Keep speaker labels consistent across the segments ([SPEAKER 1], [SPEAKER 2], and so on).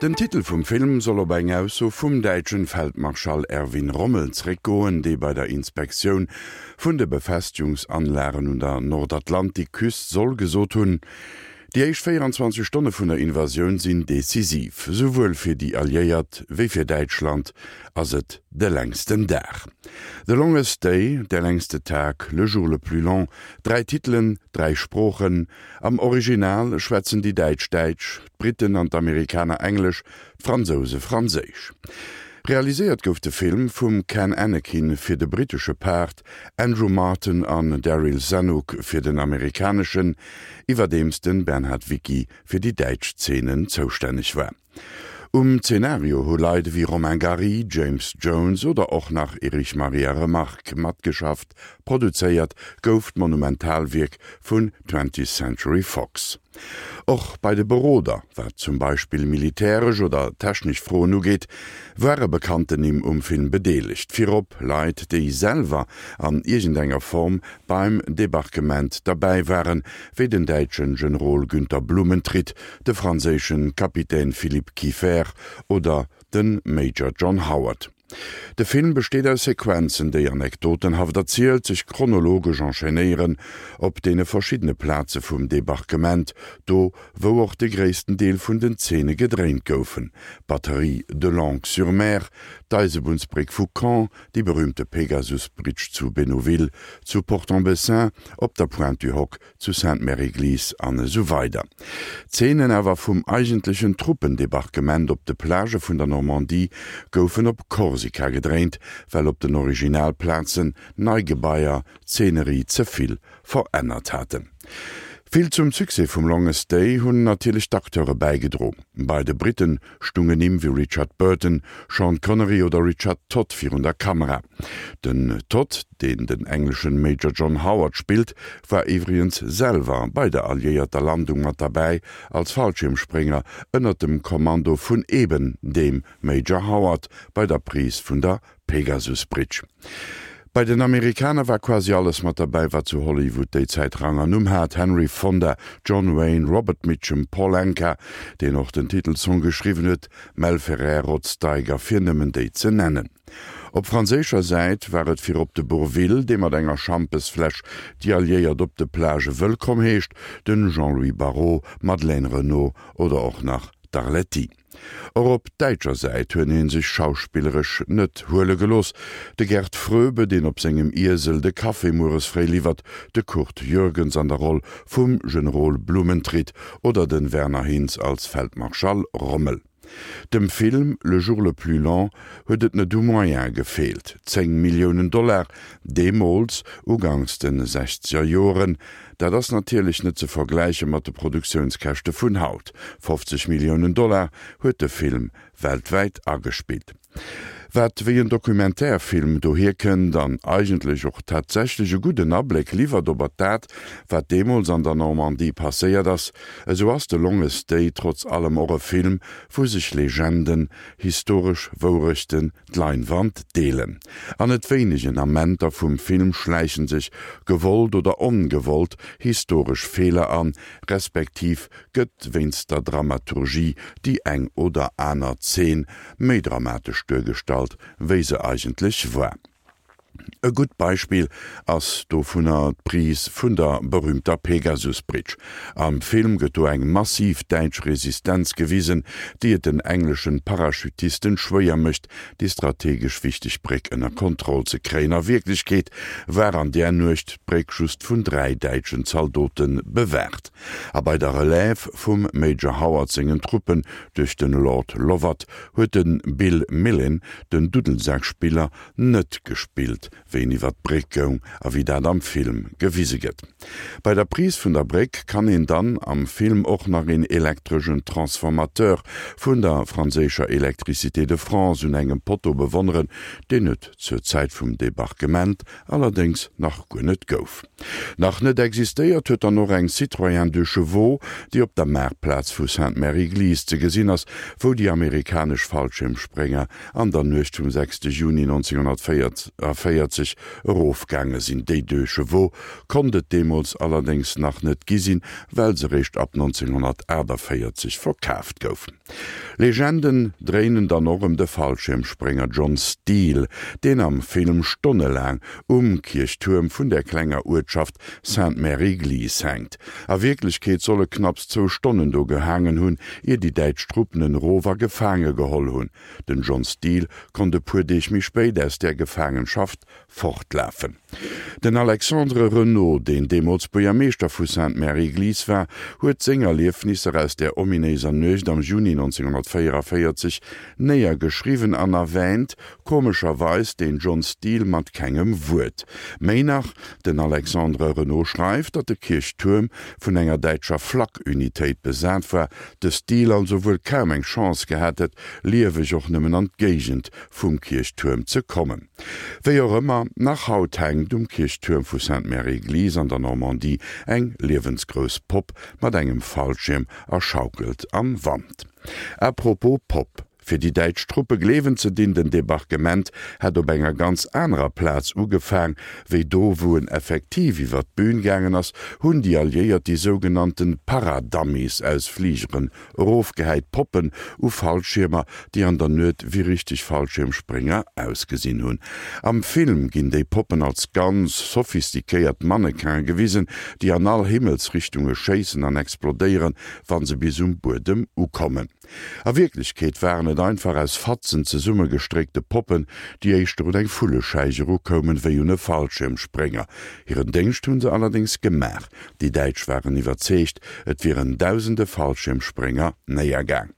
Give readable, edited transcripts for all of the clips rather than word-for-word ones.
[SPEAKER 1] Den Titel vum Film soll op eng Ausso vum däitschen Feldmarschall Erwin Rommel zréckgoen, dee bei der Inspektioun vun de Befestigungsanlagen un der Nordatlantikküst soll gesot hunn, Déi éischt 24 Stonne vun der Invasioun sinn decisiv. Souwuel fir déi Alliéiert wéi fir Däitschland ass et de längsten Dag. The Longest Day, Der längste Tag, Le jour le plus long, dräi Titelen, dräi Sproochen. Am Original schwätzen déi Däitsch Däitsch, d'Britten an d'Amerikaner Englesch, d'Fransouse Franséisch. Realiséiert gouf de Film vum Ken Annakin fir de brittesche Part, Andrew Marton an Daryl Zanuck fir den amerikaneschen, iwwerdeems den Bernhard Wicki fir déi däitsch Zeenen zoustänneg war. Um Zenario hu Leit ewéi Romain Gary, James Jones oder och nach Erich Maria Remarque matgeschafft. Produzéiert gouf d'Monumentalwierk vun Twentieth Century Fox. Och bei de Beroder, wat zum Beispill militäresch oder technesch Froen ugeet, ware bekannten Nimm um Film bedeelegt, virop Leit, déi selwer an iergendenger Form beim Debarquement derbäi waren, wéi den däitsche Generol Günter Blumentritt, de franséische Kapitän Philippe Kieffer oder de Major John Howard. De Film besteet aus Sequenzen, déi anekdotenhaft erzielt, sech chronologesch enchaînéieren op deene verschiddene Plaze vum Debarquement, do wou och de gréissten Deel vun den Zeene gedréint goufen, d'Batterie de Longues-sur-Mer, d'Eisebunnsbréck vu Caen, déi berüümte Pegasus-Bridge zu Bénouville, zu Port-en-Bessin, op der Pointe du Hoc, zu Sainte-Mère-Église an esou weider. D'Zeenen awer vum eigentlechen Truppendebarquement op de Plagë vun der Normandie goufen op Korsika gedréint, well op den Originalplazen nei Gebaier d'Zeenerie ze vill verännert haten. Vill zum Succès vum Longest Day hunn natierlech d'Acteure bäigedro. Bei de Britten stungen Nimm wéi Richard Burton, Sean Connery oder Richard Todd virun der Kamera. Den Todd, deen den engleschen Major John Howard spillt, war iwwregens selwer bei der alliéierter Landung mat derbäi als Fallschiermsprénger ënnert dem Kommando vun eben deem Major Howard bei der Prise vun der Pegasus Bridge. Bei den Amerikaner war quasi alles mat derbäi, wat zu Hollywood déi Zäit Rang an Numm hat, Henry Fonda, John Wayne, Robert Mitchum, Paul Anka, deen och den Titelsong geschriwwen huet, Mel Ferrer, Rod Steiger, fir nëmmen déi ze nennen. Op franséischer Säit war et virop de Bourvil, dee mat enger Schampesfläsch déi Alliéiert op de Plagë wëllkomm heescht, den Jean-Louis Barrault, Madeleine Renaud oder och nach d'Arletty. Och op däitscher Säit huet ee sech schauspilleresch net huele gelooss, de Gerd Fröbe, deen op sengem Iesel de Café mueres fréi liwwert, de Curd Jürgens an der Roll vum Generol Blumentritt oder de Werner Hinz als Feldmarschall Rommel. Dem Film Le jour le plus long huet et net u Moyene gefeelt, 10 Milliounen Dollar deemools, uganks de sechzeger Joren, Dat ass natierlech net ze vergläiche mat de Produktiounskäschte vun haut. 50 Milliounen Dollar huet de Film weltwäit agespillt. Wat wéi en Documentaire-Film dohier kënnt an eigentlech och tatsächlech e gudden Abléck liwwert ober dat, wat deemools an der Normandie passéiert ass, esou ass The Longest Day trotz allem och e Film, wou sech Legenden, historesch Wourechten, d'Leinwand deelen. An net wéinegen Amenter vum Film schläichen sech, gewollt oder ongewollt, historesch Feeler an, respektiv gëtt wéinst der Dramaturgie déi eng oder aner Zeen méi dramatesch duergestallt, wéi se eigentlech war. E gutt Beispill ass dovunner d'Prise vun der berühmter Pegasus Bridge. Am Film gëtt do eng massiv däitsch Resistenz gewisen, déi et den engleschen Parachutisten schwéier mécht, déi strategesch wichteg Bréck ënner Kontroll ze kréien. A Wierklechkeet war an där Nuecht d'Bréck just vun 3 däitschen Zaldote bewaacht. A bei der Relève vum Major Howard sengen Truppen duerch den Lord Lovat huet de Bill Millin, den Duddelsak-Spiller, net gespillt, wéi en iwwer d'Bréck goung a wéi dat am Film gewise gëtt. Bei der Prise vun der Bréck kann een dann am Film och nach een elektreschen Transformateur vun der franséischer Electricité de France un engem Potto bewonneren, deen et zur Zäit vum Debarquement allerdéngs nach guer net gouf. Nach net existéiert huet dann och eng Citroën Deux Chevaux, déi op der Maartplaz vu Sainte-Mère-Église ze gesinn ass, wou déi amerikanesch Fallschiermsprénger an der Nuecht vum 6 Juni 1944. 1944 erofgaange sinn. Déi Deux Chevaux konnt et deemools allerdéngs nach net gi sinn, well se réischt ab 1948 verkaaft goufen. Legenden dréinen dann och ëm de Fallschiermsprénger John Steele, deen am Film stonnelaang um Kierchtuerm vun der klenger Uertschaft Sainte-Mère-Église hänkt. A Wierklechkeet soll e knapps zwou Stonnen do gehaangen hunn, ier déi däitsch Truppen en erof a gefaange geholl hunn. Den John Steele konnt e puer Deeg méi spéit aus där Gefaangenschaft fortlafen. Den Alexandre Renaud, deen deemools Buergermeeschter vu Sainte-Mère-Église war, huet seng Erliefnisser aus där ominéiser Nuecht am Juni 1944 néiergeschriwwen an erwäänt komescherweis den John Steele mat kengem Wuert. Méi nach, den Alexandre Renaud schreift, datt de Kierchtuerm vun enger däitscher Flak-Unitéit besat war, de Steele also wuel kaum eng Chance gehat hätt, lieweg och nëmmen an d'Géigend vum Kierchtuerm ze kommen. Wéi och ëmmer, nach haut hänkt um Kierchtuerm vu Sainte-Mère-Église an der Normandie eng liewensgrouss Popp mat engem Fallschierm a schaukelt am Wand. À propos Popp, Fir déi däitsch Truppe gleewen ze dinn, den Debarquement hätt op enger ganz anerer Plaz ugefaang, wéi do wou en effektiv iwwer d'Bün gaangen ass, hunn déi Alliéiert déi sougenannten Paradummies aus Fligeren Erofgehäit Poppen u Fallschiermer, déi an der Nuet wéi richteg Fallschiermsprénger ausgesinn hunn. Am Film ginn déi Poppen als ganz sophistiquéiert Mannequin'e gewisen, déi an all Himmelsrichtunge schéissen an explodéieren, wa se bis um Buedem ukommen. A Wierklechkeet waren et einfach aus Fatzen zesummegestréckte Poppen, déi éischter un eng Vullescheich erukoumen, wéi un e Fallschiermsprénger. Hiren Déngscht hu se allerdéngs gemaach. Déi Däitsch waren iwwerzeegt, et wieren dausende Fallschiermsprénger néiergaang.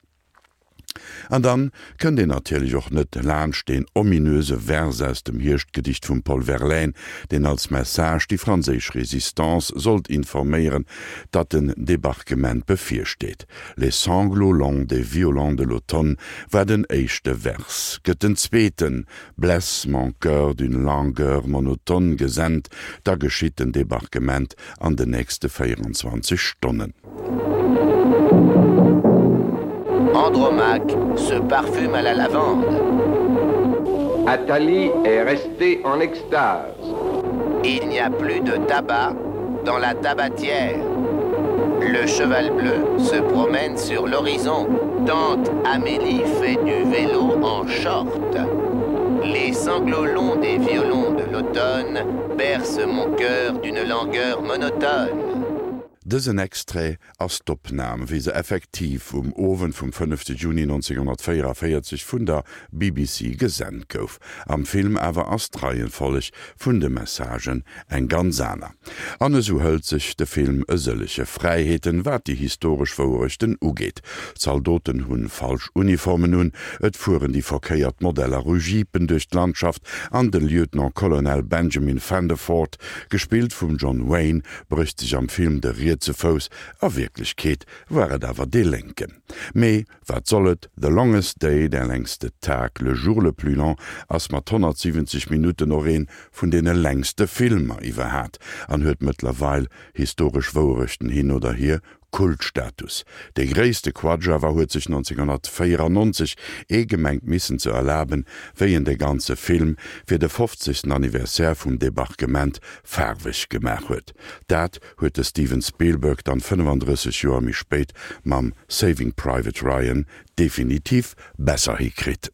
[SPEAKER 1] An dann kënnt een natierlech och net laanscht deen ominöse Vers aus dem Hierschtgedicht vum Paul Verlaine, deen als Message déi franséisch Résistance sollt informéieren, datt den Debarquement bevirsteet. Les sanglots longs des violons de l'automne war den éischte Vers. Gëtt den zweeten Blesse mon cœur d'une langueur monotone gesent, da geschitt den Debarquement an den nächste 24 Stonnen.
[SPEAKER 2] Andromaque se parfume à la lavande.
[SPEAKER 3] Athalie est restée en extase.
[SPEAKER 2] Il n'y a plus de tabac dans la tabatière. Le cheval bleu se promène sur l'horizon. Tante Amélie fait du vélo en short. Les sanglots longs des violons de l'automne bercent mon cœur d'une langueur monotone.
[SPEAKER 1] Dësen Extrait ass d'Opnam, wéi se effektiv um Owend vum fënnefte Juni 1944 vun der BBC gesent gouf. Am Film awer ass d'Reihenfolleg vun de Messagen eng ganz aner. An esou hëlt sech de Film e sëllege Fräiheeten, wat déi historesch Wouerechten ugeet. D'Zaldoten hunn falsch Uniformen un, et fueren déi verkéiert Modeller u Jeepen duerch d'Landschaft an de Lieutenant-Colonel Benjamin Vandervoort, gespillt vum John Wayne, brécht sech am Film de rietse Fouss, a Wierklechkeet war et awer dee lénken. Mee wat soll et, The Longest Day, Der längste Tag, Le jour le plus long, ass mat 170 Minutten och een vun deene längste Filmer iwwerhat an huet mëttlerweil, historesch Wouerechten hin oder hier, Kultstatus. Dee gréisste Quatsch awer huet sech 1994 ee gemengt missen ze erlaben, wéi en de ganze Film fir de 50. Anniversaire vum Debarquement faarweg gemaach huet. Dat huet de Steven Spielberg dann 35 Joer méi spéit mam Saving Private Ryan definitiv besser hikritt.